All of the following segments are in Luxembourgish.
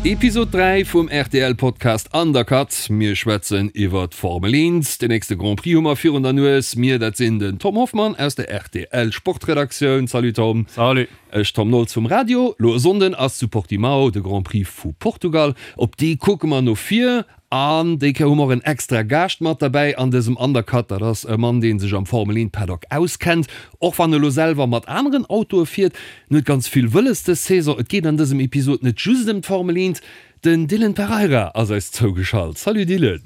Episod 3 vum rtl Podcast Undercut. Mir schwätzen iwwer d'Formel 1. Den nächste Grand Prix hu mer virun der Nues. Mir, dat sinn den Tom Hoffmann aus der rtl Sportredaktioun. Salut Tom. Salut. Ech, Tom Nolz vum Radio. Lo e Sonnden ass zu Portimao de Grand Prix vu Portugal. Op dee kucke mer no vir. An déi Kéier hu mer och en extra Gaascht mat derbäi an dësem Undercut. Dat ass e Mann, dee sech am Formel 1 Paddock auskennt, och wann e lo selwer mat aneren Autoe fiert. En huet ganz vill wëlles dës Saison. Et geet an dësem Episod net just ëm d'Formel 1. Den Dylan Pereira ass eis zougeschalt. Salut Dylan.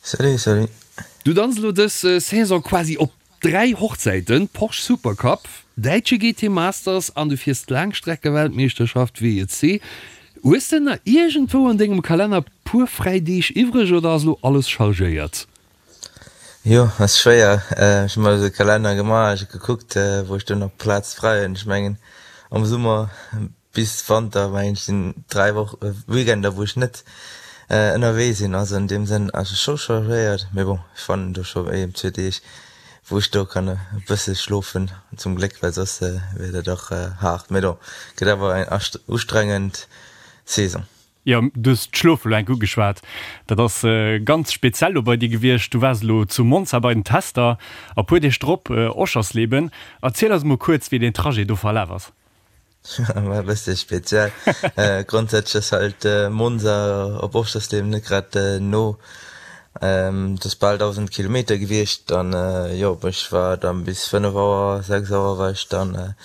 Salut, salut. Du danz elo dës Saison quasi op 3 Hochzäiten, Porsche Supercup, däitsche GT Masters an du fiers d'Laangstreckeweltmeeschterschaft WEC. Hues de nach iergendwou an dengem Kalenner puer fräi Deeg iwwreg oder ass elo alles chargéiert? Jo, ass schwéier. Ech hu mer esou e Kalenner gemaach, ech hu gekuckt wou ech do nach Plaz fräi hunn. Ech mengen am Summer Bis Wanter mengen ech sinn 3 Woch Weekender wou ech net ënnerwee sinn, also an deem Sënn ass et scho chargéiert, mee bon ech fannen do scho een zwee Deeg wou ech do kann e bësse schlofen zum Gléck, well soss wier dat och haart, mee bon gëtt awer eng ustrengend Saison. Jo, du hues d'Schlofe lo enk ugeschwat. Dat ass ganz speziell lo bei dir gewiescht. Du waars elo zu Monza bei den Tester a puer Deeg drop Oschersleben. Erziel eis mol kuerz wéi deen Trajet do verlaf ass. War e bësse speziell. Grondsätzlech ass halt Monza op Oschersleben net grad no. Et ass bal 1.000 Kilometer gewiescht an jo, ech war dann bis 5 Auer, 6 Auer war ech dann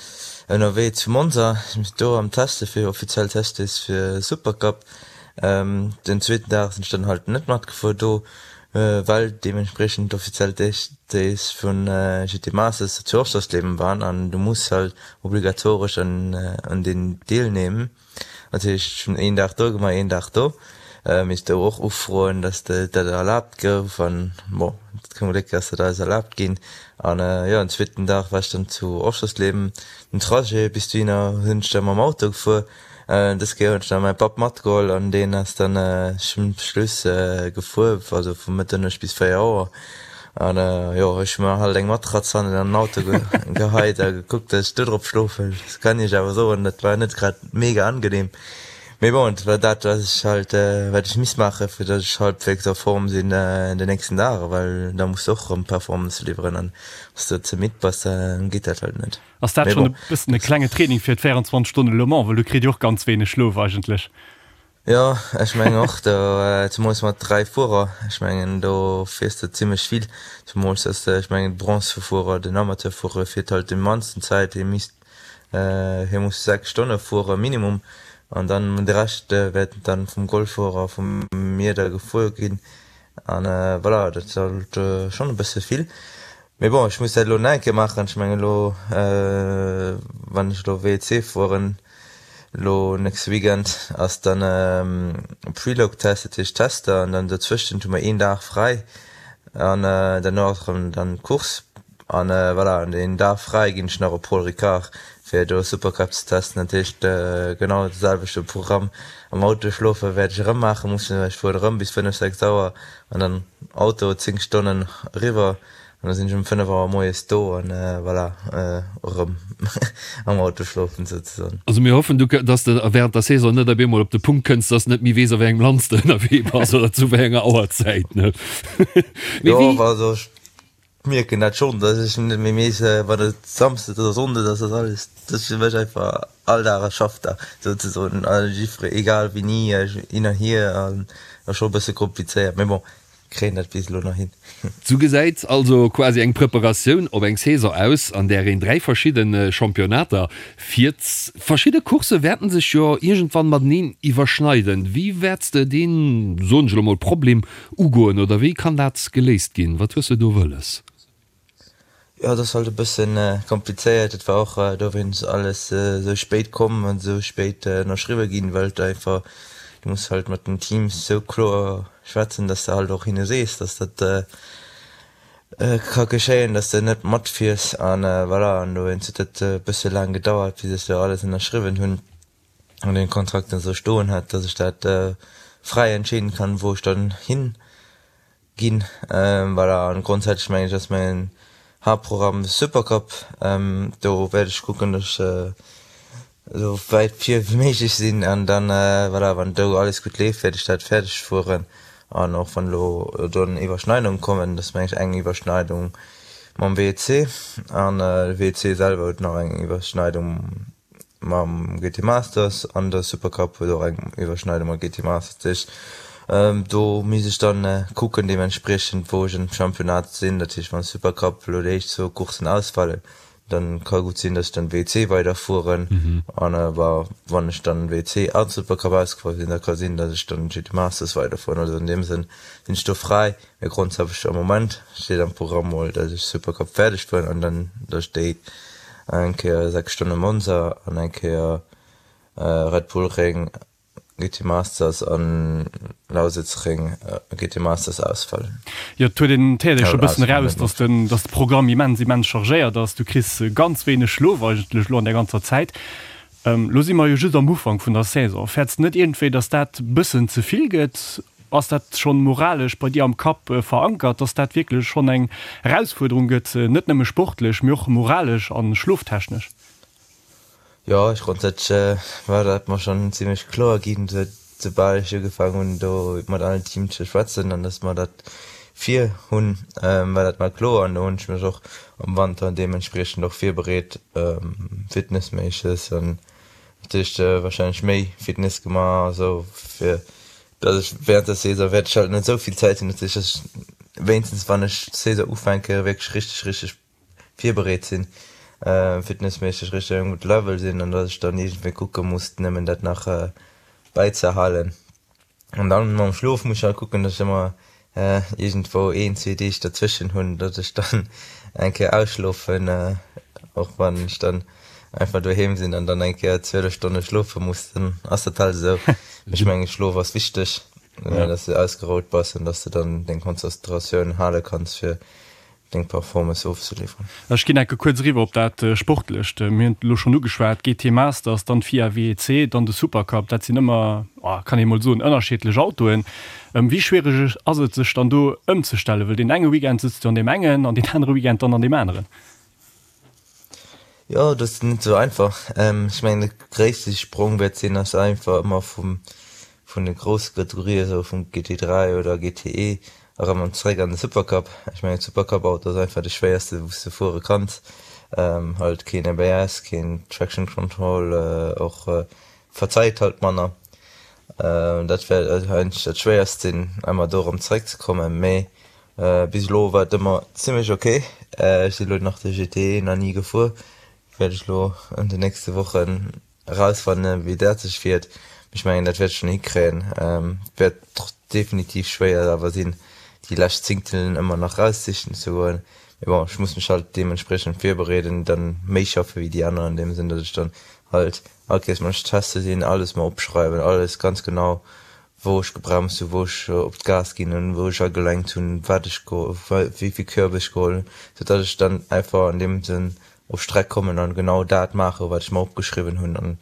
ënnerwee zu Monza do am Teste fir offiziell Testdays fir Supercup. Den zweeten Dag sinn ech dann halt net matgefuer do. Well deementspriechend d'offiziell Days vun GT Masters zu Oschersleben waren an du muss halt obligatoresch un deen deelnehmen. Dat heescht ech hunn een Dag do gemaach, een Dag do. Misst do och ufroen, dass dat erlaabt gouf an bon, zum Gléck ass dat alles erlaabt ginn. An jo, den zweeten Dag war ech dann zu Oschersleben. Den Trajet bis dohinner hunn ech da mam Auto gefuer. Dës Kéier hunn ech nach mäi Papp matgeholl an deen ass dann zum Schluss gefuer, also vu Mëtternuecht bis 4 Auer. An jo, ech hu mer halt eng Matratz hannen an den Auto geheit a gekuckt, dass ech do drop schlofen. Dat kann iech awer soen, dat war net grad mega angenehm. Mee bon, et war dat, wat ech halt, wat ech misst maachen, fir dass ech halbwegs a Form sinn den nächsten Dag, well da muss de och erëm Performance liwweren an wann s de ze midd bass, da geet dat halt net. Ass dat schonn e bëssen e klenge Training fir d'24 Stonnen Le Mans? Well du kritt jo och ganz wéineg Schlof eigentlech. Jo, ech mengen och, do zemools mat 3 Fuerer, ech mengen do fiers de zimmlech vill, zemools dass de, ech mengen de Bronzefuerer, den Amateurfuerer fiert halt déi mannsten Zäit, hie misst, hie muss 6 Stonne fuere minimum an dann de Rescht wäert dann vum Goldfuerer, vum mir da gefuer ginn an voilà, dat ass halt schonn e bësse vill. Mee bon, ech muss dat elo nach eng Kéier maachen. Ech mengen elo, wann ech elo WEC fueren, elo nächste Weekend ass dann Preload-Test, dat heescht Tester, an dann dozwëschent hu mer een Dag fräi an derno ass erëm dann d'Course. An voilà, an deen Dag fräi ginn ech nach op Paul Ricard, fir do Supercup ze testen. Dat heescht genau de selwechte Programm. Am Auto schlofe wäert ech erëm maache mussen, well ech fueren erëm bis 5, 6 Auer an dann Auto 10 Stonnen eriwwer an da sinn ech um 5 Auer moies do an voilà, erëm am Auto schlofen souzesoen. Also mir hoffen du, dass de während der Saison net op eemol op de Punkt kënns, dass de net méi weess a wéi engem Land s de ënnerwee bass oder zu wéi enger Auerzäit, ne? Mee Jo, wéi. also ech mierken dat schonn, dass ech net méi weess, wann et Samsdes oder Sonndes ass, ass alles, dat ass fir mech einfach all Dag e Schaffdag souzesoen, a jiffere egal wéini, hin an hier an ass scho e bësse komplizéiert, mee bon. Kréien dat bis elo nach hin. Sou gesäit also quasi eng Preparatioun op eng Saison aus, an där een 3 verschidde Championnater fiert. Verschidde Coursse wäerten sech jo iergendwann mateneen iwwerschneiden. Wéi wäerts de deen, soen ech elo mol, Problem ugoen oder wéi kann dat geléist ginn? Wat hues de do wëlles? Jo, et ass halt e bëssen komplizéiert. Et war och dowéinst alles esou spéit komm an esou spéit ënnerschriwwe ginn, well et einfach, du muss halt mat den Teams esou kloer schwätzen, dass de halt och hinne sees, dass dat ka geschéien, dass de net matfiers an voilà. An dowéinst huet dat e bësse laang gedauert, bis ech do alles ënnerschriwwen hunn. an den Kontrakt esou stoen hat, dass ech dat. fräi entscheeden kann, wou ech dann hin ginn. Voilà, an grondsätzlech mengen ech ass mäin Haaptprogramm de Supercup. Do wäert ech kucken, datt ech esou wäit vir wéi méiglech sinn an dann, voilà, wann do alles gutt leeft, wäert ech dat fäerdeg fueren. An och wann elo do Iwwerschneidunge kommen, dat ass mengen ech eng Iwwerschneidung mam WEC an de WEC selwer huet nach eng Iwwerschneidung mam GT Masters an de Supercup huet och eng Iwwerschneidung mam GT Masters. Dat heescht, do misst ech dann kucken deementspriechend wou ech am Championnat sinn. Dat heescht, wann de Supercup elo déi éischt zwou Courssen ausfalen, dann ka gutt sinn, dass ech dann WC weiderfueren an awer wann ech dann WC an Supercup ausgefuer sinn, da ka sinn, dass ech dann GT Masters weiderfueren. Also an deem Sënn sinn ech do fräi, mee grondsätzlech am Moment steet am Programm mol, dass ech Supercup fäerdeg fueren an dann dass ech déi eng Kéier 6 Stonne Monza an eng Kéier Red Bull Ring GT Masters an Lausitzring GT Masters ausfallen. Jo, et huet een, et héiert ee scho bëssen eraus, dass den, dass de Programm immens, immens chargéiert ass. Du kriss ganz wéineg Schlof eigentlech elo an där ganzer Zäit. Elo si mer jo just am Ufank vun der Saison. Fäerts de net iergendwéi, dass dat bëssen ze vill gëtt? Ass dat schonn moralesch bei dir am Kapp verankert, dass dat wierklech schonn eng Erausfuerderung gëtt, net nëmme sportlech, mee och moralesch a schloftechnesch? Jo, ech grondsätzlech war dat mer schonn zimlech kloer ginn, soubal ech ugefaangen hunn do mat allen Teams ze schwätzen an dass mer dat vir hunn, war dat mer kloer an do hunn ech mech och am Wanter deementspriechend och virbereet, fitnessméisseg an natierlech warscheinlech méi Fitness gemaach a sou fir dass ech während der Saison wäert ech halt net esou vill Zäit hunn, dat heescht dass ech wéinstens wann ech d'Saison ufänke wierklech richteg richteg virbereet sinn, fitnessméisseg richteg um gudde Level sinn an datt ech dann iergendwéi kucke muss nëmmen dat nach bäizehalen. An dann mam Schlof muss ech halt kucken, datt ech ëmmer iergendwou een, zwee Deeg derzwëschen hunn, datt ech dann eng Kéier ausschlofen, och wann ech dann einfach doheem sinn an dann eng Kéier 12 Stonne schlofe muss, dann ass dat halt esou. Ech menge Schlof ass wichteg, datt s de ausgerout bass an datt s de dann deng Konzentratioun hale kanns fir deng Performance ofzeliwweren. Ech ginn enke kuerz eriwwer op dat Sportlecht. Mir hunn et elo schonn ugeschwat, GT Masters, dann d'FIA WEC, dann de Supercup, dat sinn ëmmer, kann ee mol soen, ënnerschiddlech Autoen. Wéi schwiereg ass et sech dann do ëmzestellen, well deen enge Weekend sëtz du an deem engen an deen anere Weekend dann an deem aneren? Jo, dat ass net esou einfach. Ech mengen de gréisste Sprong wäert sinn, ass einfach ëmmer vum vun de grousse Kategorien, esou vum GT3 oder GTE erëm an zeréck an de Supercup. Ech mengen Supercup-Auto ass einfach de schwéierste wou s de fuere kanns. Halt keen ABS, keen Traction Control, och verzeit halt manner. Dat wäert eigentlech dat schwéierst sinn, ëmmer do erëm zeréck ze kommen, mee bis elo war et ëmmer zimmlech ok. Ech sinn elo nach de GTE nach ni gefuer, wäert ech elo an den nächste Wochen Erausfannen wéi dat sech fiert, mee ech mengen dat wäert ech schon hikréien. Wäert definitiv schwéier awer sinn déi lescht Zingtelen ëmmer nach raussichen ze goen, mee bon ech muss mech halt deementspriechend virbereeden, dann méi schaffe wéi déi aner an deem Sënn, datt ech dann halt all Kéiers wann ech teste sinn alles mer opschreiwen, alles ganz genau wou ech gebremst hunn, wou ech op d'Gas ginn hunn, wou ech agelenkt hunn, wat ech wéi vill Körb ech geholl hunn, sou datt ech dann einfach an deem Sënn op Streck kommen an genau dat maachen, wat ech mer opgeschriwwen hunn an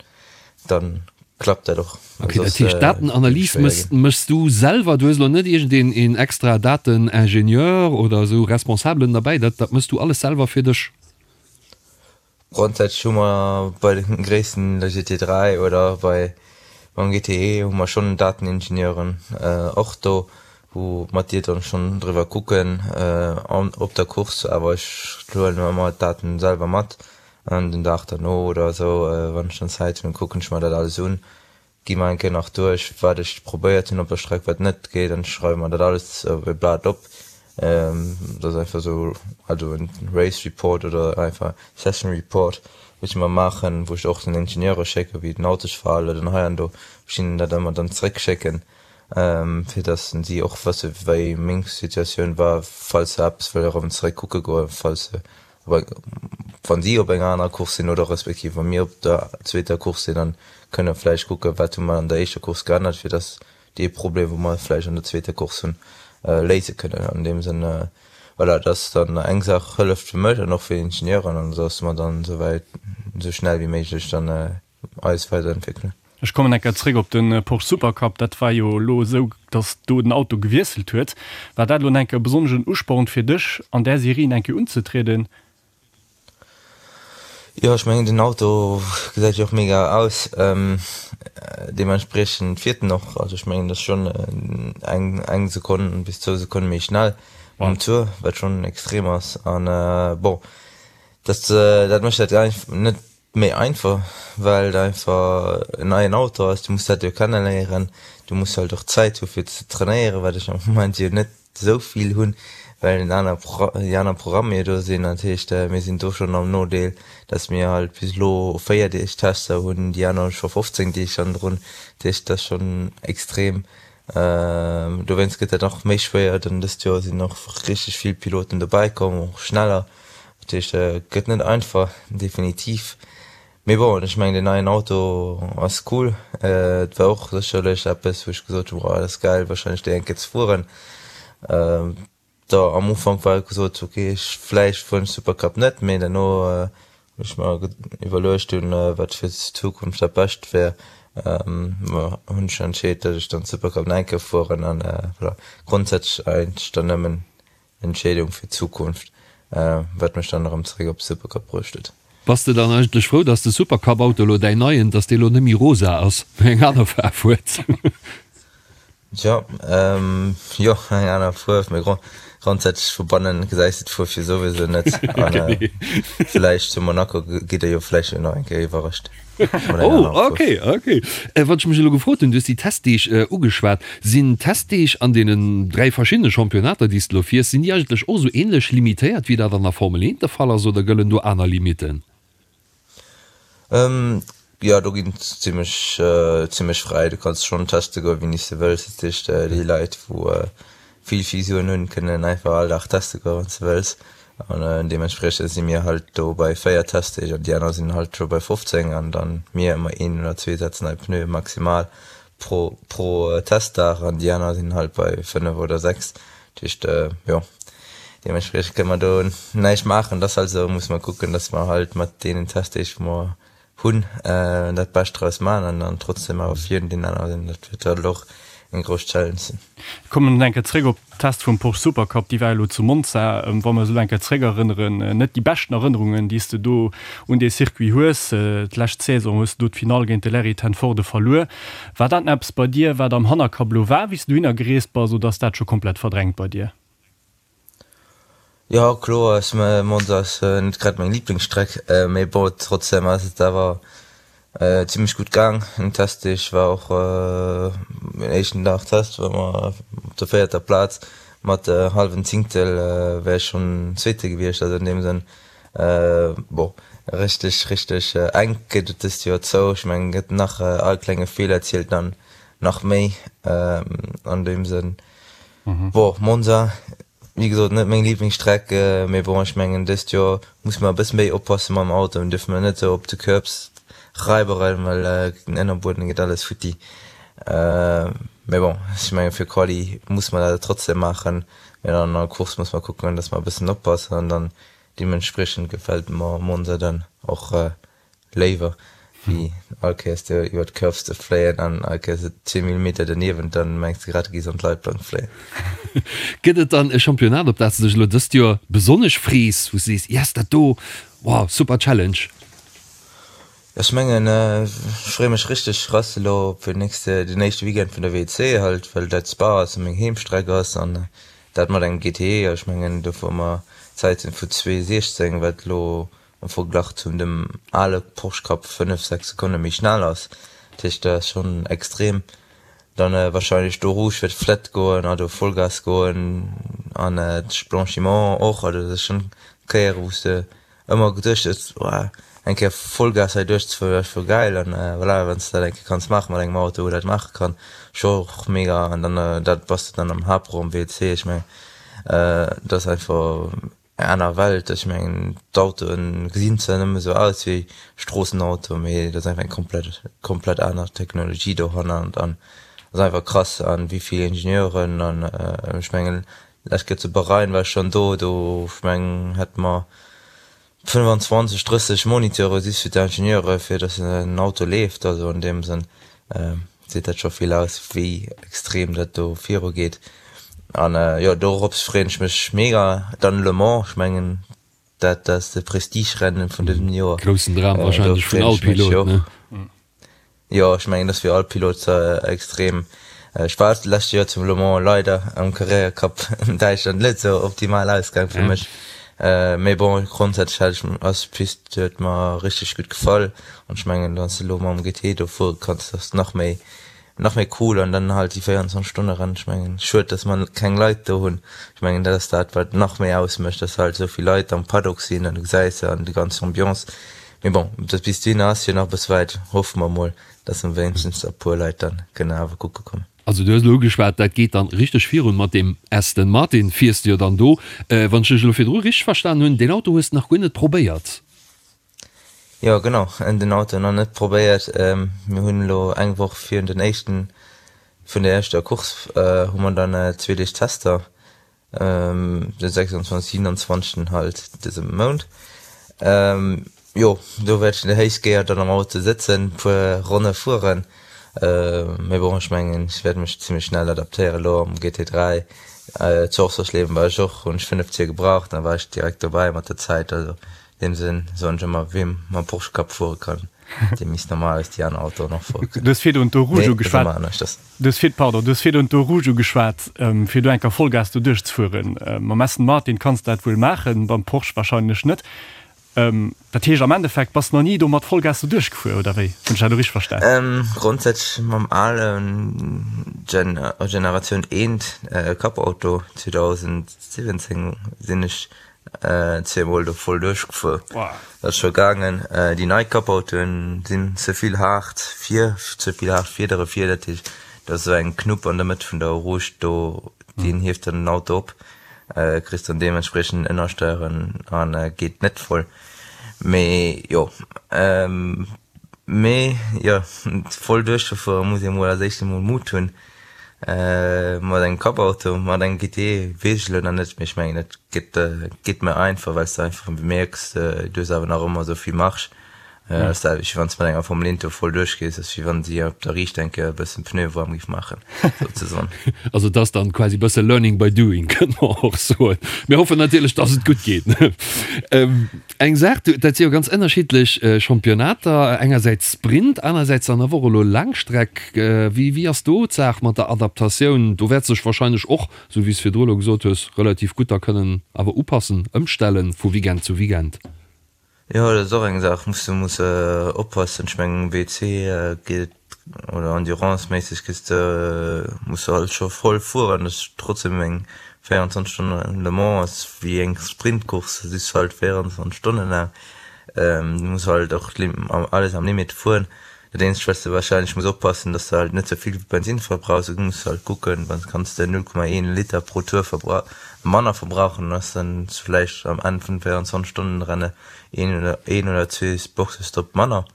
dann klappt dat och. Ok, dat heescht Datenanalys méchs du selwer, du hues elo net iergendeen een extra Dateningenieur oder esou Responsabelen derbäi, dat dat méchs du alles selwer fir dech? Grondsätzlech hu mer bei de gréissten, der GT3 oder bei beim GTE hu mer schonn Dateningenieuren och do, wou mat dir dann schonn driwwer kucken an op der Course, awer ech huelen ëmmer d'Daten selwer mat an den Dag derno oder esou, wann ech dann Zäit hunn, kucken ech mer dat alles un, gi mer eng Kéier nach duerch wat ech probéiert hunn op der Streck, wat net geet an schreiwe mer dat alles op e Blat op. Dat ass einfach esou, also en Race Report oder einfach Session Report, wou ech ëmmer maachen, wou ech och den Ingenieure schécken, wéi den Auto sech verhalen huet an hei an do, wou ech hinnen dat ëmmer dann zeréckschécken. fir dass si och wësse wéi meng Situatioun war, falls se eppes wëlle erëm zeréck kucke goen, falls se op eng, wann si op enger anerer Course sinn oder respektiv wa mir op der zweeter Course sinn, dann kënne vläicht kucke wat hu mer an der éischter Course geännert, fir dass dee Problem wou mer vläicht an der zweeter Course hunn, léise kënnen. An deem Sënn, voilà, dass dann eng Saach hëlleft fir mech an och fir d'Ingenieuren an dass mer dann esouwäit esou schnell wéi méiglech dann eis weiderentwéckelen. Ech kommen eng Kéier zréck op de Porsche Supercup. Dat war jo elo esou, datt do den Auto gewiesselt huet. War dat elo eng Kéier e besonneschen Usporn fir dech, an där Serie eng Kéier unzetrieden? Jo, ech mengen den Auto gesäit jo och mega aus, deementspriechend fiert en och. Also ech mengen dat ass schonn eng eng Sekonn bis zwou Sekonne méi schnell um Tour, wat schonn extrem ass. An bon, dat dat mécht dat net méi einfach, well et einfach en neien Auto ass. Du muss dat jo kenneléieren, du muss halt och Zäit hu fir ze trainéieren, wat ech am Moment jo net esou vill hunn, well den aner déi aner Programmer jo do sinn. Dat heescht, mir sinn do schonn am Nodeel, datt mir halt bis elo 4 Deeg Tester hunn, déi aner hu scho 15 Deeg hannendrun. Dat heescht, dat ass schonn extrem. Dowéinst gëtt dat nach méi schwéier. Dann dëst Joer sinn och richteg vill Piloten dobäi komm, och schneller. Dat heescht, et gëtt net einfach, definitiv. Mee bon, ech mengen den neien Auto ass cool. Et war och sécherlech eppes wou ech gesot hunn, oh dat ass gäil wahrscheinlech déi eng Kéier ze fueren. Da am Ufank war gesot, ok ech vläicht fueren ech Supercup net, mee derno hunn ech mer iwwerluecht hunn wat fir d'Zukunft dat bescht wär, hunn ech entscheet datt ech dann Supercup nach eng Kéier fueren an voilà. Grondsätzlech eigentlech dann nëmmen Entscheedung fir d'Zukunft, wat mech dann erëm zeréck op de Supercup bruecht huet. Bass de dann eigentlech frou, dass de Supercup-Auto elo, däin neien, dass dee lo net méi rosa ass, mee eng aner Faarf huet? Tjo, jo, eng aner Fuerf, mee grondsätzlech vu bannen gesäis de d'Fuerf jo souwisou net. An villäicht zu Monaco gitt der jo vläicht nach eng Kéier iwwerrascht. Oh, ok, ok. Wat ech mech elo gefrot hunn, du hues déi Testdeeg ugeschwat. Sinn d'Testdeeg an deenen 3 verschiddene Championnater, déi s de elo fiers, sinn déi eigentlech och esou änlech limitéiert, wéi dat an der Formel 1 de Fall ass, oder gëllen do aner Limitten? Jo, do ginn et zimmlech, zimmlech fräi. Du kanns schonn teste goen, wéini s de wëlls. Dat heescht, déi Leit, wou vill, vill Suen hunn, kënnen einfach all Dag teste goen, wann s de wëlls. An deementspriechend si mir halt do bei 4 Testdeeg an déi aner sinn halt scho bei 15 an dann mir ëmmer een oder zwee Sätz nei Pneue maximal pro pro Testdag an déi aner sinn halt bei 5 oder 6. Dat heescht jo deementspriechend kënne mer do näischt maachen. Dat ass halt esou, musse mer kucken, datt mer halt mat deenen Testdeeg wou mer hunn dat Bescht draus maachen an dann trotzdem awer virun deenen anere sinn. Dat wäert halt och eng grouss Challenge sinn. Kommen eng Kéier zréck op d'Test vum Porsche Supercup, déi war elo zu Monza. Wa mer esou eng Kéier zréck erënneren, net déi beschten Erënnerungen, déi s de do un dee Circuit hues. D'lescht Saison hues de do d'Finall géint de Larry ten Voorde verluer. War dat eppes bei dir, wat am Hannerkapp elo war, wéi s de dohinner gereest bass, oder ass dat scho komplett verdrängt bei dir? Jo kloer ass Monza ass net grad meng Liblingsstreck, mee bon trotzdem ass et awer zimmlech gutt gaang. Den Testdeeg war och den éischten Dag Test war mer op der véierter Plaz mat hallwen Zingtel wär ech schonn Zweete gewiescht, also an deem Sënn bon richteg richteg enk geet et dëst Joer zou. Ech mengen gëtt nach all klenge Feeler zielt dann nach méi an deem Sënn. Bon, Monza, wéi gesot, net meng Liblingsstreck, mee bon, ech mengen dëst Joer musse mer e bësse méi oppasse mam Auto, mir dierfe mer net esou op de Curbs raiberen, well den Ënnerbueden geet alles futti. Mee bon, ech menge fir Quali musse mer dat trotzdem maachen, mee dann an der Course musse mer kucken, datt mer e bëssen oppassen an dann deementspriechend gefält mer Monza dann och Léiwer wéi all Kéiers do iwwer d'Curves ze fléien an all Kéiers zwee Millimeter derniewent, dann mengs de grad du gees an d'Leitplank fléien. Gëtt et dann e Championnat op dat s de dech elo dëst Joer besonnesch frees, wou s de sees, yes dat do, wow, super Challenge? Ech mengen ech freeë mech richteg krass elo op den nächste, den éischte Weekend vun der WEC halt, well dat Spa ass a meng Heemstreck ass an dat mat engem GTE. Ech mengen do fuere mer Zäiten vu 2,16, wat elo am Verglach zum dem ale Porsche Cup 5, 6 Sekonne méi schnell ass. Dat heescht dat ass schonn extrem. Dann wahrscheinlech d'Eau Rouge wäert flett goen, also Vollgas goen an d'Blanchiment och. Also dat ass schonn Kéiere wou s de ëmmer geduecht hues, Woah eng Kéier Vollgas hei duerchzefueren wär scho gäil. An voilà, wann s de dat eng Kéier kanns maache mat engem Auto wou dat maache kann, scho och mega. An dann dat bass de dann am Haaptraum WC. Ech mengen dat ass einfach Eng aner Welt. Ech mengen d'Autoen gesinn zwar nëmme sou aus wéi Stroossenauto, mee dat ass einfach eng komplett komplett aner Technologie dohannert an ass einfach krass an wéi vill Ingenieuren an ech mengen lech gëtt zu Bahrain war ech schonn do, do ech mengen hätte mer 25, 30 Moniteure just fir d'Ingenieure fir datt en Auto leeft, also an deem Sënn. Seet dat scho vill aus, wéi extrem dat do viru geet. An jo, dorops freeën ech mech mega. Dann Le Mans, ech mengen dat ass de Prestigerennen vun dësem Joer. Groussen Dram wahrscheinlech vun all Pilot, ne? Jo, ech mengen dat ass fir all Pilot extrem. Ech war d'lescht Joer zum Le Mans, leider am Carrera Cup an Däitschland net esou optimal ausgaang fir mech. Mee bon, grondsätzlech hat ech ass d'Pist huet mer richteg gutt gefall an ech mengen wann s de elo mam GT do fuere kanns, dat ass nach méi nach méi cool an dann halt déi 24 Stonne Rennen. Ech mengen schued, dass mer keng Leit do hunn. Ech mengen dat ass dat wat nach méi ausmécht, dass halt esou vill Leit am Paddock sinn an du gesäis se an déi ganz Ambiance. Mee bon, dat bis dohinner ass jo nach e bësse wäit. Hoffe mer mol, dass mer wéinstens e puer Leit dann kënne awer kucke kommen. Also du hues elo ugeschwat, dat geet dann richteg virun mat deem Aston Martin. Fiers de jo dann do. Wann ech dech elo virdru richteg verstan hunn, deen Auto hues de nach guer net probéiert? Jo genau, den Auto nach net probéiert. Mir hunn elo eng Woch virun den éischten, vun der éischter Course hu mer dann zwee Deeg Tester. Den 26, 27 halt dëse Mount. Jo, do wäert ech déi éischt Kéier dann am Auto sëtzen, puer Ronne fueren. Mee bon, ech mengen, ech wäert mech zimmlech schnell adaptéieren. Elo am GT3 zu Oschersleben war ech och, hunn ech 5 Tier gebraucht, da war ech direkt dobäi mat der Zäit. Also an deem Sënn soen ech ëmmer, wee mam Porsche Cup fuere kann, dee misst normalerweis déi aner Autoen och fuere kënnen. Du hues virdrun d'Eau Rouge ugeschwat. Du hues vir, pardon, du hues virdrun d'Eau Rouge ugeschwat, fir do eng Kéier Vollgas do duerchzefueren. Mam Aston Martin kanns de dat wuel maachen, beim Porsche wahrscheinlech net. Dat heescht am Endeffekt bass de nach ni do mat Vollgas do duerchgefuer, oder wéi? Hunn ech dat elo richteg verstan? Grondsätzlech mam alen Gen, Generatioun eent Cup-Auto 2017 sinn ech Zweemol do voll duerchgefuer, dat ass scho gaangen. Déi nei Cup-Autoen sinn ze vill haart vir, ze vill haart Fiedere vir, dat heescht do ass esou eng Knupp an der Mëtt vun der Eau Rouge do, deen hieft dann den Auto op, kriss dann deementspriechend Ënnersteieren an geet net voll. Mee jo, mee jo voll duerchzefuere muss ee mol als éischt emol Mut hunn. Mat engem Cup-Auto, mat engem GT weess ech elo nach net, mee ech mengen et gëtt geet méi einfach, well s de einfach mierks, du hues awer nach ëmmer esou vill Marge. Ass dat wéi wann s de mat enger Formel 1 do voll duerchgees, ass wéi wann si op der Riicht eng Kéier e bëssen Pneue waarm géif maachen, souzesoen. Also et ass dann quasi e bësse Learning by doing, kënne mer och soen. Mir hoffen natierlech, dass et gutt geet. Eng Saach, dat si jo ganz ënnerschiddlech Championnater, engersäits Sprint, anersäits dann awer och elo Laangstreck. Wéi wéi ass do d'Saach mat der Adaptatioun? Do wäerts de dech wahrscheinlech och, esou wéi s virdru elo gesot hues, relativ gutt da kënnen awer upassen, ëmstellen vu Weekend zu Weekend. Jo, dat ass och eng Saach, muss de muss oppassen. Ech mengen WC geet et oder Endurance-méisseg kriss de, muss de halt scho voll fueren, dat ass trotzdem eng 24 Stonnen Le Mans ass wéi eng Sprintcourse, du siss halt 24 Stonnen laang, du muss halt och alles am Limit fueren. Dat eenzegt wat s de wahrscheinlech muss oppassen, dass de halt net ze vill Bensinn verbrauchs, du muss halt kucken, wann kanns de 0,1 Liter pro Tour manner verbrauchen, dann ass dann vläicht am Enn vun 24 Stonnen Renne een oder een oder zwee Boxestopp manner.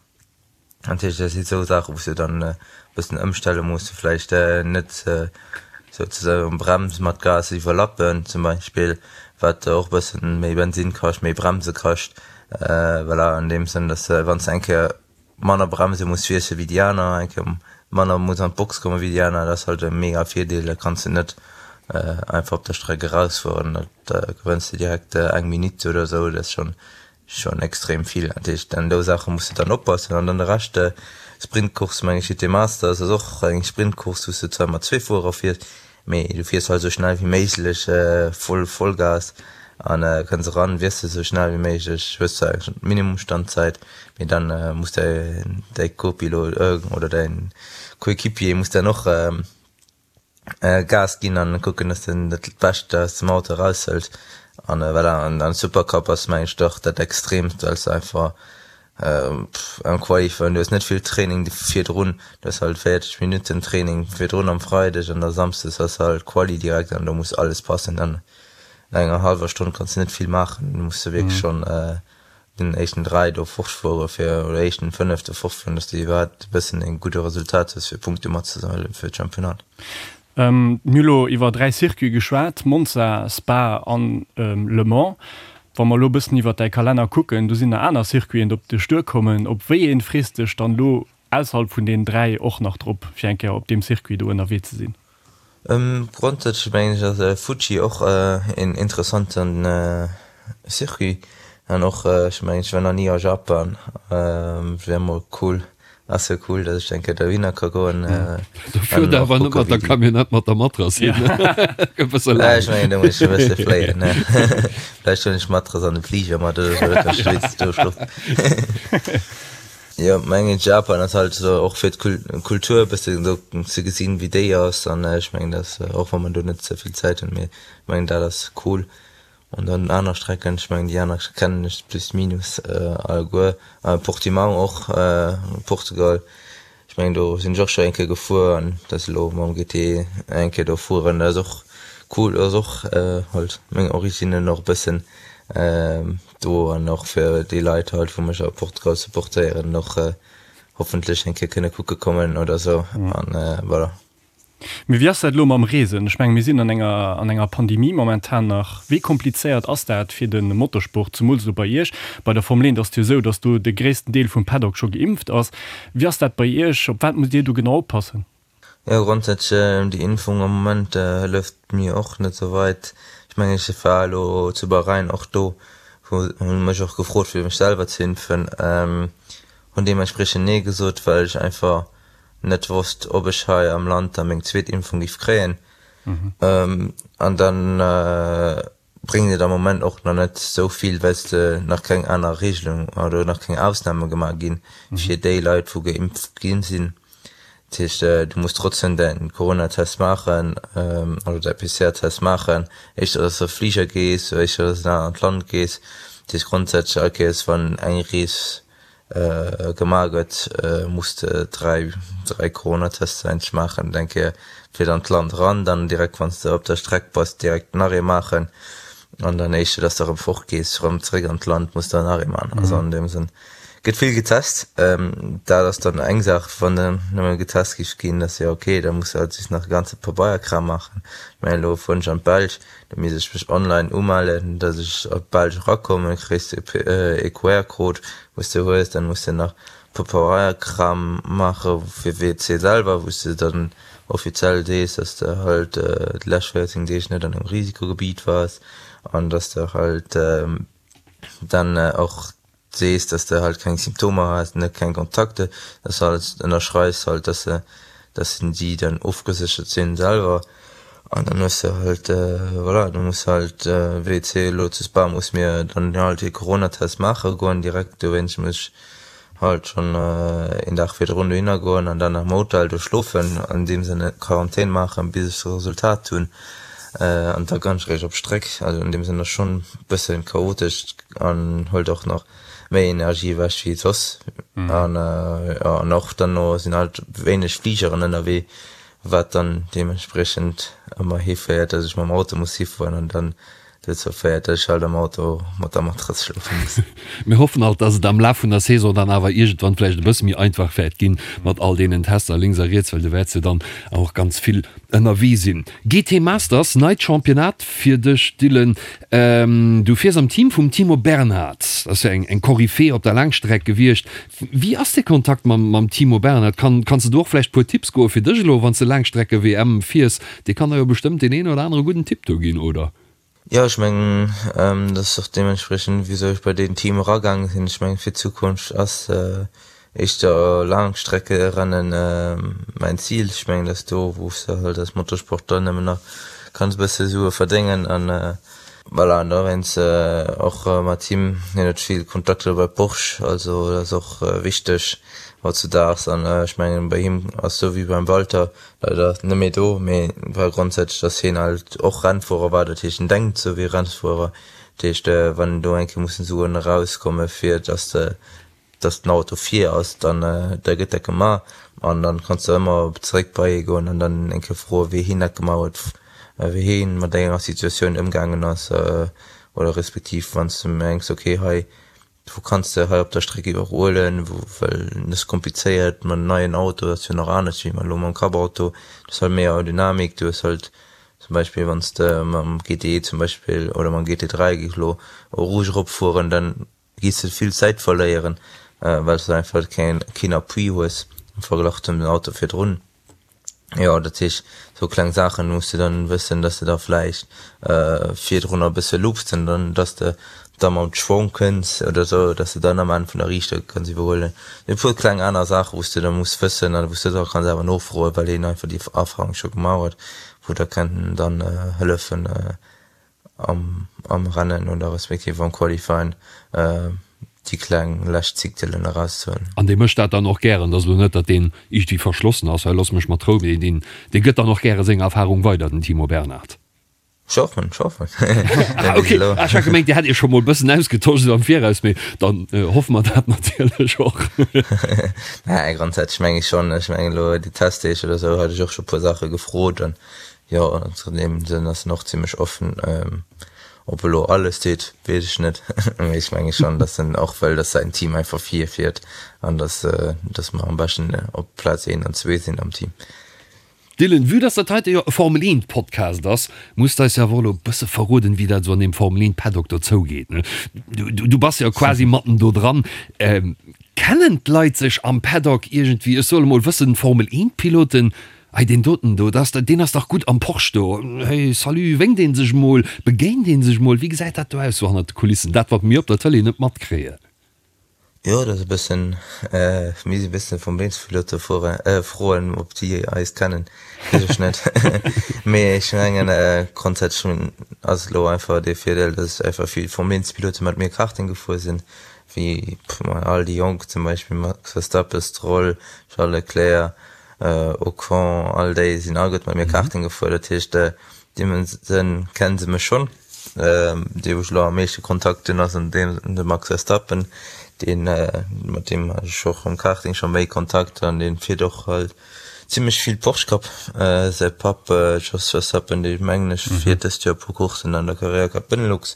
Natierlech, dat si sou Saachen, wou s de dann e bëssen ëmstelle muss, vläicht net souzesoen Brems mat Gas iwwerlappen zum Beispill, wat och e bëssen méi Bensinn kascht, méi Bremse kascht. Voilà, an deem Sënn, dass de, wann s de eng Kéier manner Bremse muss wiessele wéi déi aner, eng Kéier manner muss an d'Box komme wéi déi aner, dat ass halt e mega Virdeel. Da kanns de net einfach op der Streck erausfueren, da gewënns de direkt eng Minutt oder esou. Dat ass schonn Schon extrem vill. Dat heescht, an dou Saache muss de dann oppassen. An dann de Rescht, Sprintcourse, meng ech, GT Masters ass och eng Sprintcourse, wou s de zwar mat zwee Fuerer fiers, mee du fiers halt esou schnell wéi méiglech, voll Vollgas an kënns eran, wiesses esou schnell wéi méiglech, hues zwar eng Minimumstandzäit, mee dann muss däi däi Copilot oder däin Coéquipier muss dann och Gas ginn an kucken dass den dat Bescht aus dem Auto eraushëlt an voilà. An an Supercup ass meng ech dach dat extreemst well s de einfach am Qualifying, du hues net vill Training virdrun, du hues halt 40 Minutten Training virdrun am Freideg an da Samsdes ass halt Quali direkt an do muss alles passen an enger hallwer Stonn kanns de net vill maachen, du muss de wierklech schonn den éischten 3 do fortfuere fir, oder éischten 5 do fortfueren, dass de iwwerhaapt e bëssen e gudde Resultat hues fir Punkte matzesammelen fir d'Championnat. Mir hu lo iwwer 3 Circuite geschwat, Monza, Spa an Le Mans. Wa mer elo e bëssen iwwer däi Kalenner kucken, do sinn nach aner Circuiten op dech duerkommen. Op wéi een frees dech dann elo? ausserhalb vun deenen 3 och nach drop, fir eng Kéier op deem Circuit do ënnerwee ze sinn? Grondsätzlech mengen ech ass Fuji och een interessanten Circuit an och ech mengen ech war nach ni a Japan, wär mol cool, ass jo cool dass ech eng Kéier dohinner ka goen. Do fuert der awer net mat der Camionnette mat der Matrass hin, gëtt bësse laang. Ech mengen do muss ech e bësse fléien, vläicht huelen ech d'Matrass an de Fliger mat oder sou, da kann ech wéinstens do schlofen. Jo mengen Japan ass halt esou och fir d'Kultur e bëssen do ze gesinn wéi déi ass an ech mengen dat ass och wa mer do net ze vill Zäit hunn mee ech mengen dat ass cool an dann aner Strecken ech mengen déi aner kennen ech plus minus alleguer Portimão och Portugal ech mengen do sinn ech och scho eng Kéier gefuer an dat ass elo mam GT eng Kéier do fueren dat ass och cool ass och halt meng Originnen och e bëssen. Do an och fir déi Leit halt wou mech a Portugal supportéieren och hoffentlech eng Kéier kënne kucke kommen oder sou an voilà. Mee wéi ass dat elo mam Reesen? Ech menge mir sinn an enger an enger Pandemie momentan nach. Wéi komplizéiert ass dat fir de Motorsport, zemools elo bei Iech? Bei der Formel 1 ass et jo esou, datt do de gréissten Deel vum Paddock scho geimpft ass. Wéi ass dat bei Iech? Op wat musst Dir do genau oppassen? Jo, grondsätzlech déi Impfung am Moment hëlleft mir och net sou weit. Ech mengen ech war elo zu Bahrain och do, wou hunn mech och gefrot fir mech selwer ze impfen, hunn deementspriechend nee gesot, well ech einfach net wosst ob ech hei am Land da meng zweet Impfung giff kréien. An dann bréngt et am Moment och nach net esou vill, well s de nach keng aner Regelung oder nach keng Ausname gemaach ginn fir déi Leit, wou geimpft gi sinn. Dat heescht, du muss trotzdem däin Coronatest maachen oder däi PCR-Test maachen, éischter dass de op Fliger gees oder éischter dass de an en anert Land gees. Dat heescht grondsätzlech all Kéiers, wann eng Rees Gemaach gëtt, muss de 3, 3 Coronatester eigentlech maachen, eng Kéier fir an d'Land eran, dann direkt wann s de op der Streck bass direkt nach ee maachen an dann éischter dass de erëm fort gees, erëm zeréck an d'Land muss de nach ee maachen. Also an deem Sënn gëtt vill getest. Dat ass dann eng Saach, wann dann nëmme getest géif ginn, dat ass jo ok, da muss de halt just nach e ganze Pabeierkram maachen. Mä elo fueren ech an d'Belsch, Da misst ech mech online umellen, dass ech op d'Belsch erakommen, kriss de e QR-Code, wou s de hues. Dann muss de nach Papeierkram maache fir WC selwer, wou s de dann offiziell sees, dass de halt déi lescht 14 Deeg net an engem Risikogebiet waars an dass de halt dann och sees, dass de halt keng Symptomer has, net keng Kontakte, dass de alles ënnerschreifs halt, dass de, dass si dann ofgeséchert sinn selwer an dann hues de halt, voilà, du muss halt WC elo zu Spa muss mir dann halt ee Coronatest maache goen direkt, dowéinst muss ech halt schonn een Dag virdrun dohinner goen an dann am Hotel do schlofen, an deem Sënne Quarantän maachen, bis ech d'Resultat hunn an da kann ech eréischt op d'Stréck. Also an deem Sënn ass schonn e bësse chaotesch an hëlt och nach méi Energie ewech wéi soss. An jo, an och dann no sinn halt wéineg Fligeren ënnerwee, wat dann deementspriechend ëmmer hiféiert, dass ech mam Auto muss hifueren an dann Dozou féiert, dass ech halt am Auto mat der Matrass schlofe muss. Mir hoffen alt, dass et am Laf vun der Saison dann awer iergendwann vläicht e bësse méi einfach wäert ginn mat all deenen Tester lénks a riets, well du wäerts jo dann och ganz vill ënnerwee sinn. GT Masters, neit Championnat fir dech, Dylan. Du fiers am Team vum Timo Bernhard, dat ass jo eng Koryphee op der Laangstreck gewiescht. Wéi ass de Kontakt mam Timo Bernhard? Kanns de do och vläicht puer Tipps goe fir dech elo, wann s de Laangstrecke-WM fiers? Dee kann der jo bestëmmt deen een oder anere gudden Tipp do ginn, oder? Jo, ech mengen, dat ass och deementspriechend, wisou ech bei deen Team eragaange sinn. Ech mengen, fir d'Zukunft ass éischter Laangstreckerennen mäin Zil. Ech mengen, dat ass do, wou s de halt als Motorsportler nëmmen nach kanns e bësse Sue verdéngen. An voilà, an dowéinst och mat him, hien huet vill Kontakter bei Porsche, also dat ass och wichteg hautzudaags. An ech mengen, bei him ass esou wéi beim Walter, Leider net méi do, mee war grondsätzlech dass hien halt och Rennfuerer war, dat heescht en denkt sou wéi e Rennfuerer, dat heescht wann do eng Kéier mussen Suen erauskomme fir dass de dass den Auto vir ass, dann da gëtt dat gemaach an dann kanns de ëmmer zeréck bei hie goen an dann eng Kéier froe wéi hien dat gemaach huet, wéi hien mat enger Situatioun ëmgaangen ass oder respektiv wann s de mengs ok hei Wou kanns de hei op der Streck iwwerhuelen, wou, well et ass komplizéiert mat neien Auto, dat ass jo nach anescht wéi elo mam Cup-Auto, du hues halt méi Aerodynamik, du hues halt zum Beispill wann s de mam GTE zum Beispill oder mam GT3 géif elo Eau Rouge eropfueren, dann gees de vill Zäit verléieren, well s de einfach keen, keen Appui hues. Am Verglach zum Auto virdrun. Jo, dat heescht, sou kleng Saachen muss de dann wëssen, dass de da vläicht virdrun e bësse loopst an dann, dass de da mam Schwong kënns oder sou, dass de dann am Enn vun der Riichter kanns iwwerhuelen. E puer kleng aner Saachen, wou s de da muss wëssen an wou s de da kanns awer nofroen, well hien einfach déi Erfahrung scho gemaach huet, wou der kënnen dann hëllefen am am Rennen oder respektiv am Qualifying déi kleng lescht Zictelen erauszehuelen. An dee mécht dat dann och gären. Et ass elo net, datt deen iergendwéi verschlossen ass, hei looss mech mat Rou, mee deen dee gëtt dann och gäre seng Erfahrung weider, den Timo Bernhard. Ech hoffen, ech hoffen. Ah ok, ah ech hat gemengt dir hätt iech scho mol bëssen ausgetosch esou am Viraus, mee dann hoffe mer dat natierlech och. Nä, grondsätzlech meng ech schonn. Ech mengen elo déi Testdeeg oder esou hat ech och scho puer Saache gefrot an jo, an deem Sënn ass en och zimmlech offen. Ob elo alles deet, weess ech net, mee ech menge schonn, datt en och wëll, datt säin Team einfach virfiert an datt datt mer am beschten op Plaz een an zwee sinn am Team. Dylan, vue dass dat heite jo e Formel 1 Podcast ass, muss de eis jo awer och elo e bësse verroden, wéi dat esou an deem Formel 1 Paddock do zougeet, ne? Du bass jo quasi matten do dran. Kennen d'Leit sech am Paddock iergendwéi? Ech soe mol, wëssen Formel 1 Piloten, Hey, deen doten do, dat ass, deen ass dach gutt am Porsche do. Hey, salut, wénkt ee sech mol, begéint ee sech mol? Wéi gesäit dat do aus, sou hannert de Kulissen, dat wat mir op der Tëlee net matkréien? Jo, dat ass e bëssen, mir si e bëssen vum Beenspilote froen, ob déi eis kennen, weess ech net. Mee ech mengen grondsätzlech ass elo einfach dee Virdeel, datt einfach vill Formel-Eent-Pilote mat mir Karting gefuer sinn, wéi all déi Jonk zum Beispill Max Verstappen, Stroll, Charles Leclerc, Ocon, all déi sinn alleguerte mat mir Karting gefuer. Dat heescht, deem Sënn kennen se mech schonn. Dee wou ech elo am meeschte Kontakt hunn ass an deem de Max Verstappen, deen mat deem hat ech och am Karting scho méi Kontakt an dee fiert och halt zimlech vill Porsche Cup. Säi Papp Jos Verstappen, dee mengen ech fiert dëst Joer e puer Courssen an der Carrera Cup Benelux.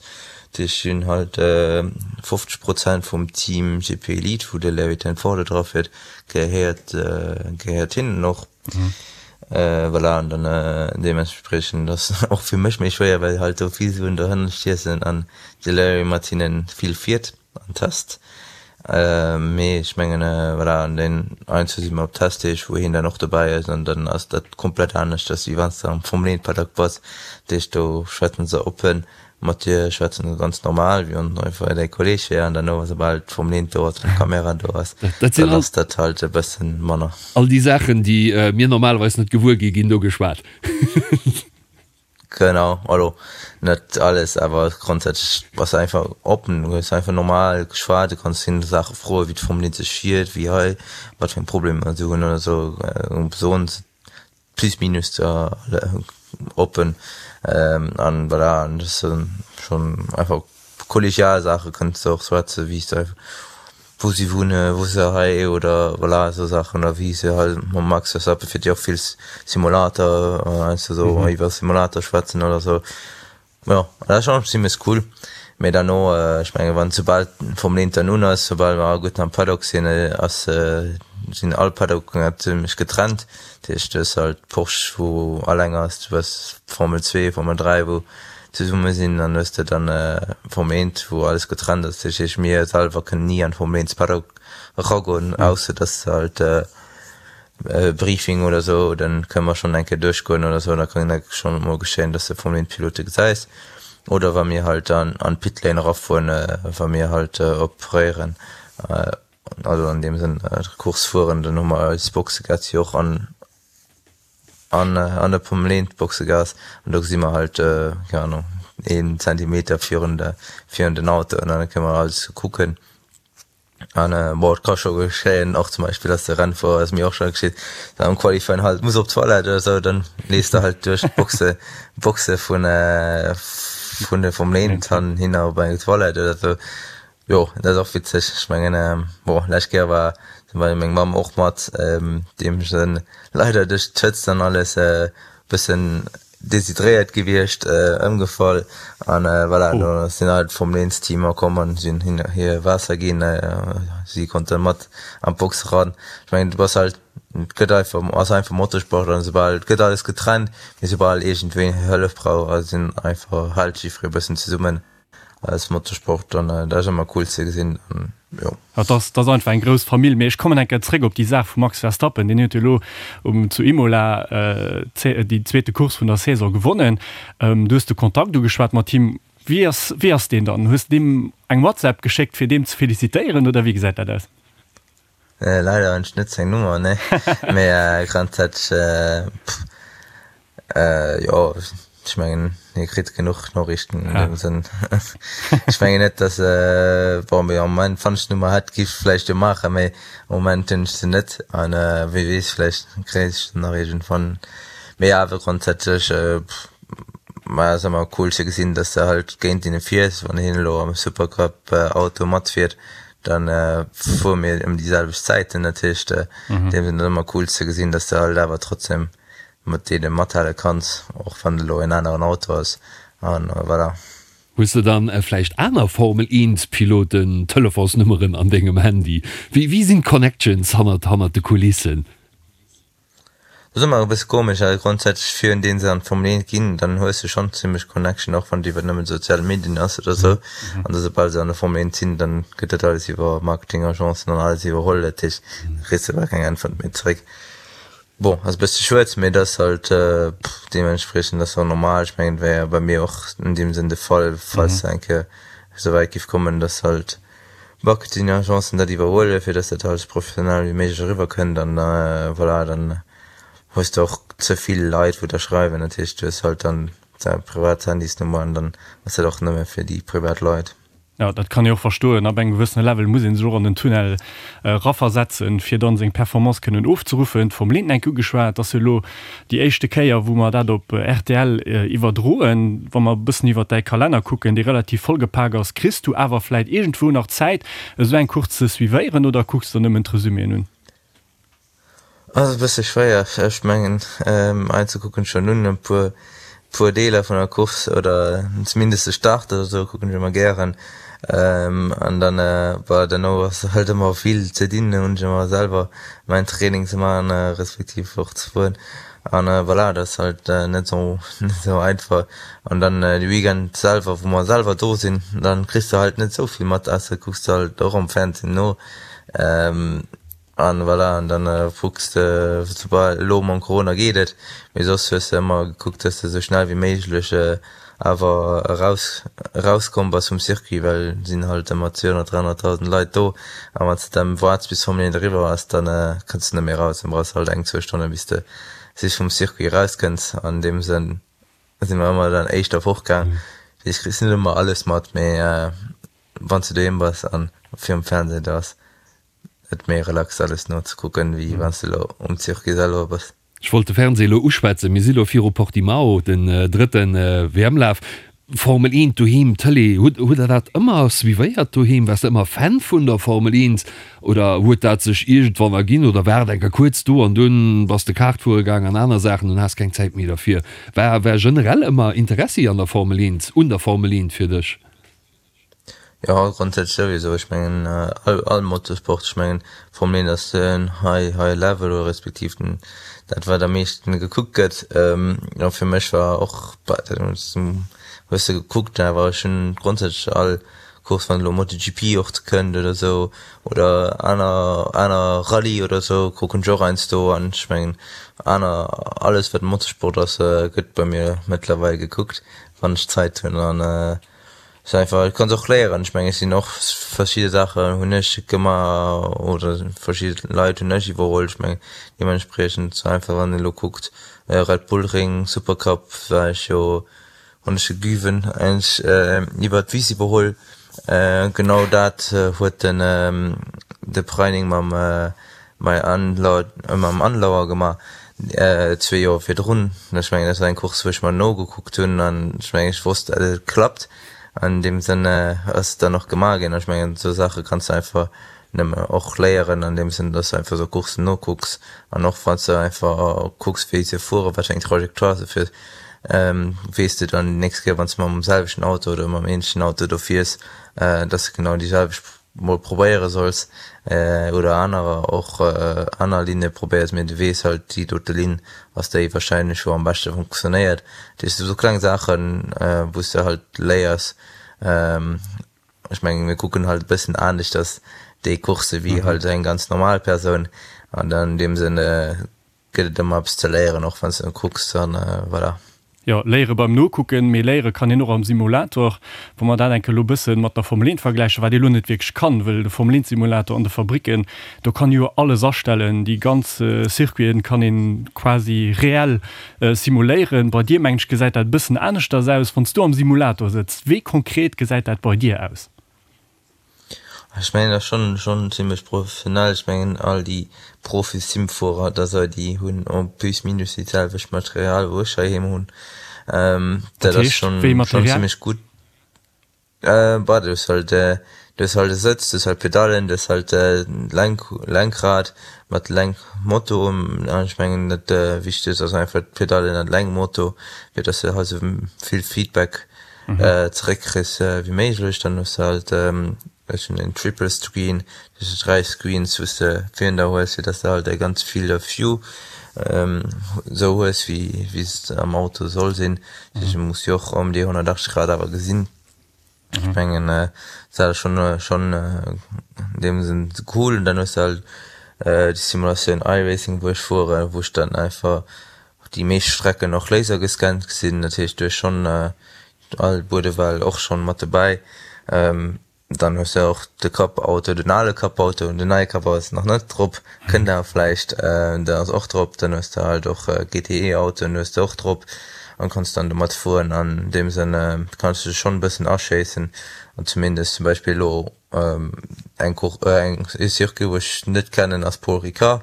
Déi hunn halt 50 Prozent vum Team GP Elite, wou de Larry ten Voorde dra fiert, gehéiert gehéiert hinnen och. Voilà, an dann deementspriechend ass och fir mech méi schwéier, well halt do vill Suen dohënner stiessen an de Larry mat hinnen vill fiert an test. Mee ech mengen, voilà, an den heiansdo si mer op Testdeeg, wou hien dann och dobäi ass an dann ass dat komplett aneschters, wéi wann s de am Formel 1 Paddock bass. Dat heescht, do schwätzen se oppen Mat dir schwätzen se ganz normal, wéi wann einfach däi Kolleg wär, an derno, soubal d'Formel 1 do ass, wann d'Kamera do ass, dann ass dat halt e bëssen manner. All déi Saachen, déi mir normalerweis net gewuer ginn, ginn do geschwat. Genau, also net alles, awer grondsätzlech bass de einfach oppen, du hues einfach normal geschwat, du kanns hinne Saache froen, wéi d'Formel 1 sech fiert, wéi hei, wat fir eng Problemer se hunn oder sou, soen se plus minus da oppen an voilà an das schon einfach kollegial Sache kënns de och schwätze wéi se wou si wunne wou se hei oder voilà esou Saachen oder wéi se halt mam Max Verstappen fiert jo och vill Simulator heiansdo esou iwwer Simulator schwätzen oder sou. Jo, dat ass schonn zimlech cool. Mee derno, ech menge wann soubal d'Formel 1 dann un ass, soubal mer alleguerten am Paddock sinn, ass sinn all Paddocken zimlech getrennt. Dat heescht, du hues halt Porsche wou alleng ass, du hues Formel 2, Formel 3 wou zesumme sinn an hues de dann Formel 1 wou alles getrennt ass. Dat heescht mir selwer kënnen ni an d'Formel 1 Paddock eragoen, ausser datt s de halt Briefing oder sou, dann kënne mer schonn eng Kéier duerchgoen oder sou, da kann dat schonn emol geschéien, dass de Formel 1 Pilote gesäis. Oder wa mir halt an an d'Pitlane erafueren, wa mir halt operéieren, also an deem Sënn d'Course fueren, dann hu mer eis Boxegas jo och an an an der Formel 1 Boxegas an do gesi mer halt, keng Ahnung, een Zentimeter virun de virun den Autoen an da kënne mer alles kucken. An bon, et ka scho geschéien, och zum Beispill, dass de Rennfuerer, ass mir och scho geschitt, dann am Qualifying halt muss op d'Toilette oder sou, dann leefs de halt duerch d'Boxe, Boxe vun vun de Formel 1 han hinner op eng Toilette oder sou. Jo, dat ass och witzeg. Ech mengen, bon, lescht Kéier war zum Beispill meng Mamm och mat, déi hu sech leider duerch d'Hëtzt an alles e bëssen deshydréiert gewiescht, ëmgefall an voilà, do sinn all d'Formel 1 Teamer komm an sinn hin hir Waasser ginn, si konnte mat an d'Box eran. Ech mengen du bass halt, et gëtt einfach, ass einfach Motorsport an soubal, et gëtt alles getrennt, mee soubal iergendween Hëllef brauch, sinn einfach, hält jiffree e bëssen zesummen als Motorsport an dat ass ëmmer cool ze gesinn. Jo. Dat ass, dat ass einfach eng grouss Famill. Mee ech kommen eng Kéier zréck op déi Saach vum Max Verstappen. Deen huet jo elo um, zu Imola déi zweete Course vun der Saison gewonnen. Du hues de Kontakt ugeschwat mat him. Wéi ass, wéi ass deen dann? Hues de deem eng WhatsApp geschéckt, fir deem ze felicitéieren oder wéi gesäit dat aus? Leider hunn ech net seng Nummer, nee. Mee grondsätzlech, pff, Jo, ech mengen hie kritt genuch Noriichten an deem Sënn. Ech mengen net, datt, bon, mee am Moment, wann ech d'Nummer hätt, giff ech vläicht jo maachen, mee am Moment hunn ech se net an wie weess, vläicht kréien ech se nach iergendwann. Mee awer grondsätzlech, ma ass ëmmer cool ze gesinn, datt s de halt géint hinne fiers. Wann hien elo am Supercup Auto matfiert, dann fuere mir ëm déi selwecht Zäiten. Dat heescht, an deem Sënn ass ëmmer cool ze gesinn, datt s de halt awer trotzdem mat deene mathale kanns, och wann et elo en aneren Auto ass an voilà. Hues de dann vläicht aner Formel 1 Piloten Telefonsnummeren an dengem Handy? Wéi wéi sinn d'Connections hannert hannert de Kulissen? Dat ass ëmmer e bësse komesch, well grondsätzlech virun deem se an d'Formel 1 ginn, dann hues de schonn zimmlech Connection, och wann et iwwer nëmmen sozial Medien ass oder sou. An da soubal se an der Formel 1 sinn, dann gëtt dat alles iwwer Marketingagencen an alles iwwerholl, dat heescht, da kriss de bal keng Äntwert méi zeréck. Bon, ass e bësse schued, mee et ass halt deementspriechend ass och normal. Ech mengen, et wär jo bei mir och an deem Sënn de Fall, falls se eng Kéier esou wäit giff kommen, dass halt Marketingagencen dat iwwerhuelen, fir dass dat halt esou professionell wéi méiglech eriwwer kënnt an voilà, dann hues de och ze vill Leit wou der schreiwen. Dat heescht, du hues halt dann däi privat Handysnummer an dann ass dat och nëmme fir déi privat Leit. Jo, dat kann ee och verstoen. Ab engem gewëssene Level muss ee sech och an den Tunnel eraversetzen, fir dann seng Performance kënnen ofzeruffen. D'Formel 1 enk ugeschwat, ass jo elo déi éischte Kéier, wou mer dat op rtl iwwerdroen. Wa mer e bëssen iwwert däi Kalenner kucken, dee relativ vollgepak ass, kriss du awer vläit iergendwou nach Zäit, esou eng Course ze suivéieren oder kucks der nëmmen d'Resuméen un? Ass e bësse schwéier, ech mengen einzel kucken ech schon un e puer puer Deeler vun der Course oder zumindest de Start oder sou kucken ech ëmmer gären an dann bah derno ass halt ëmmer vill ze dinn, hunn ech ëmmer selwer mäin Training ze maachen respektiv och ze fueren an voilà dat ass halt net sou net sou einfach an dann de Weekend selwer wou mer selwer do sinn dann kriss de halt net sou vill mat ausser kucks de halt och am Fernsehen no. An voilà, an dann kucks de, soubal, elo mam Corona geet et, mee soss hues de ëmmer gekuckt, dass de sou schnell wéi méiglech awer eraus, erauskomm bass vum Circuit, well et sinn halt ëmmer 200, 300.000 Leit do a wann s de dann waarts bis d'Formel 1 eriwwer ass, dann kënns de net méi eraus, dann brauchs de halt eng, zwou Stonne bis de sich vum Circuit erauskënns. An deem Sënn si mer ëmmer dann éischter fortgaang. Dat heescht, kriss net ëmmer alles mat, mee wann s de doheem bass an virum Fernseh, da ass Et méi relax alles nozekucken wéi wanns de lo um Circuit selwer bass. Ech wollt de Fernseh elo uschwätzen. Mir si lo viru Portimao, den drëtten WM-Laf. Formel 1 doheem, Tëlee, hutt hutt der dat ëmmer suivéiert doheem? Waars de ëmmer Fan vun der Formel 1 oder huet dat sech iergendwann erginn oder war et eng Kéier kuerz do an dunn bass de Kart fuere gaang an aner Saachen an has keng Zäit méi derfir? War war generell ëmmer Interessi an der Formel 1, un der Formel 1 fir dech? Jo, grondsätzlech souwisou. Ech mengen all all Motorsport, ech mengen Formel 1 ass den high high level oder respektiv den dat wat am meeschten gekuckt gëtt. Jo fir mech war och hues de gekuckt, awer ech hunn grondsätzlech all Course wann elo MotoGP och kënnt oder sou oder aner aner Rallye oder sou kucken ech och heiansdo an ech mengen aner alles wat Motorsport ass gëtt bei mir mëttlerweil gekuckt wann ech Zäit hunn an Ass einfach, du kanns och léieren. Ech mengen, ech sinn och verschidde Saachen hunn ech gemaach oder verschidde Leit hunn ech iwwerholl. Ech mengen deementspriechend sou einfach wann een elo kuckt Red Bull Ring, Supercup war ech jo, hunn ech de Güven eigentlech iwwer d'Wiss iwwerholl. Genau dat huet den de Preining mam Mei mam Andlauer gemaach zwee Joer virdrun. Ech mengen dat war eng Course wou ech mer nogekuckt hunn an ech mengen ech wosst dat et klappt. An deem Sënn ass et dann och gemaach ginn. Ech mengen esou Saache kanns de einfach nëmme och léieren an deem Sënn, dass de einfach esou Courssen nokucks an och wann s de einfach kucks wéi se fueren, wat fir eng Trajectoire se fir weess de dann déi nächst Kéier wann s de mam selwechten Auto oder mam ähnlechen Auto do fiers, dass de genau déi selwecht mol probéiere solls oder anerer och aner Linne probéiers, mee du weess halt déi dote Linn ass déi wahrscheinlech wou am beschte funktionéiert. Dat heescht esou kleng Saachen wou s de halt léiers. Ech mengen, mir kucken halt e bëssen aneschters déi Coursse wéi halt eng ganz normal Persoun an an deem Sënn gëtt et ëmmer eppes ze léieren, och wann s de net kucks an voilà. Jo, léiere beim Nokucken, mee léiere kann een och am Simulator. Wa mer dat eng Kéier elo e bësse mat der Formel 1 vergläichen, wat ee lo net wierklech kann, wëll de Formel 1 Simulator an de Fabricken, do kann ee jo alles astellen, déi ganz Circuiten kann een quasi reell simuléieren. Bei dir, mengen ech, gesäit dat e bëssen aneschters aus, wann s du am Simulator sëtzt. Wéi konkret gesäit dat bei dir aus? Ech mengen dat ass schonn schonn zimlech professionell. Ech mengen all déi Profi-Simfuerer oder sou déi hunn en plus minus déi selwecht Material wou ech heiheem hunn. Dat ass schonn schonn zimlech gutt. Bah du hues halt du hues halt e Sëtz, du hues halt Pedallen, du hues halt Lenk Lenkrad mat Lenkmoto. An ech mengen dat Wichtegst ass einfach d'Pedallen an d'Lenkmoto fir dass de halt sou vill Feedback zeréck kriss wéi méiglech. Dann hues de halt, ech hunn en Triple Screen, dat heescht 3 Screens wou s de virun der hues, fir dass de halt e ganz Field of View esou hues wéi wéi s am Auto soll sinn. Dat heescht du muss jo och ëm déi 180 Grad awer gesinn. Ech mengen dat ass schonn schonn an deem Sënn cool. Und dann hues de halt déi Simulatioun iRacing wou ech fueren, wou ech dann einfach Déi meescht Strecken och lasergescannt sinn, dat heescht du hues schonn all Buedewell och schonn mat dobäi. Dann hues de och de Cup-Auto, den ale Cup-Auto, den neie Cup-Auto ass nach net drop, kënnt awer vläicht, den ass och drop. Dann hues de halt och GTE-Autoen hues de och drop an kanns dann domat fueren. An deem Sënn kanns du dech schonn e bëssen aschéissen an zumindest zum Beispill elo Eng Course, eng e Circuit wou ech net kennen ass Paul Ricard.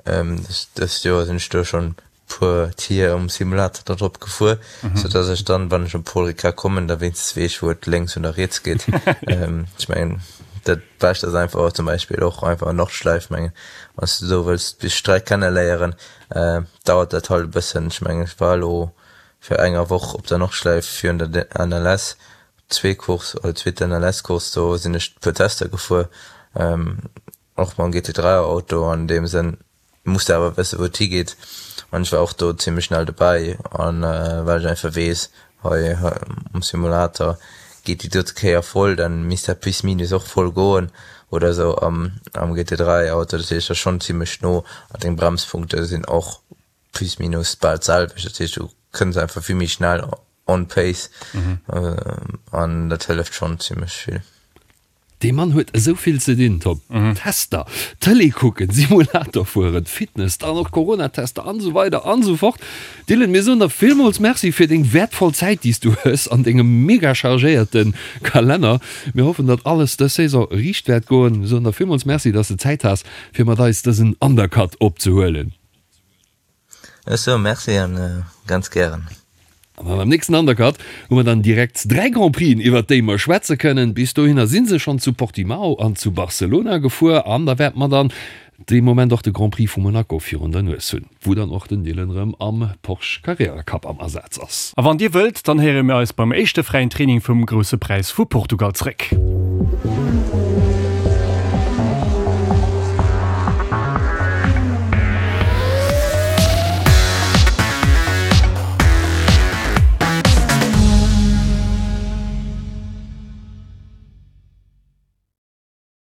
Dëst Joer sinn ech do schonn puer Tier um Simulator da drop gefuer, sou dass ech dann, wann ech op Paul Ricard kommen, da wéinstens weess wou et lénks oder riets geet. Ech mengen dat bescht ass einfach zum Beispill och einfach Nordschleif, mengen wann s de do wëlls déi Streck kenne léieren, dauert dat halt e bëssen. Ech mengen ech war elo fir enger Woch op der Nordschleif virun der NLS Zwee Course oder zweet NLS Course do sinn ech puer Tester gefuer och mam GT3 Auto an deem Sënn muss de awer wësse wou et higeet an ech war och do zimmlech schnell dobäi an well ech einfach weess hei um Simulator geet déi dote Kéier voll dann misst dat plus minus och voll goen oder esou am am GT3 Auto dat heescht ass schonn zimmlech no an deng Bremspunkte sinn och plus minus bal d'selwecht dat heescht du kënns einfach vill méi schnell on pace an dat hëlleft schonn zimmlech vill. Dee Mann huet esou vill ze dinn, Tom. Tester, Tëlee kucken, Simulator fueren, Fitness, dann och Corona-Tester an esou weider an esou fort. Dylan, mir soen der villmools Merci fir deng wäertvoll Zäit, déi s du hues an dengem mega chargéierte Kalenner. Mir hoffen, datt alles dës Saison riicht wäert goen. Mir soen der villmools Merci, datt s de Zäit has, fir mat eis dësen Undercut opzehuelen. Ech soe Merci an ganz gären. An am nächsten Undercut hu mer dann direkt 3 Grand Prixen iwwert déi mer schwätze kënnen. Bis dohinner si se schonn zu Portimao an zu Barcelona gefuer an da wäerte mer dann dee Moment och de Grand Prix vu Monaco virun der Nues hunn, wou dann och den Dylan erëm am Porsche Carrera Cup am Asaz ass. A wann Dir wëllt, dann héiere mir eis beim éischte fräien Training vum Grousse Präis vu Portugal zréck.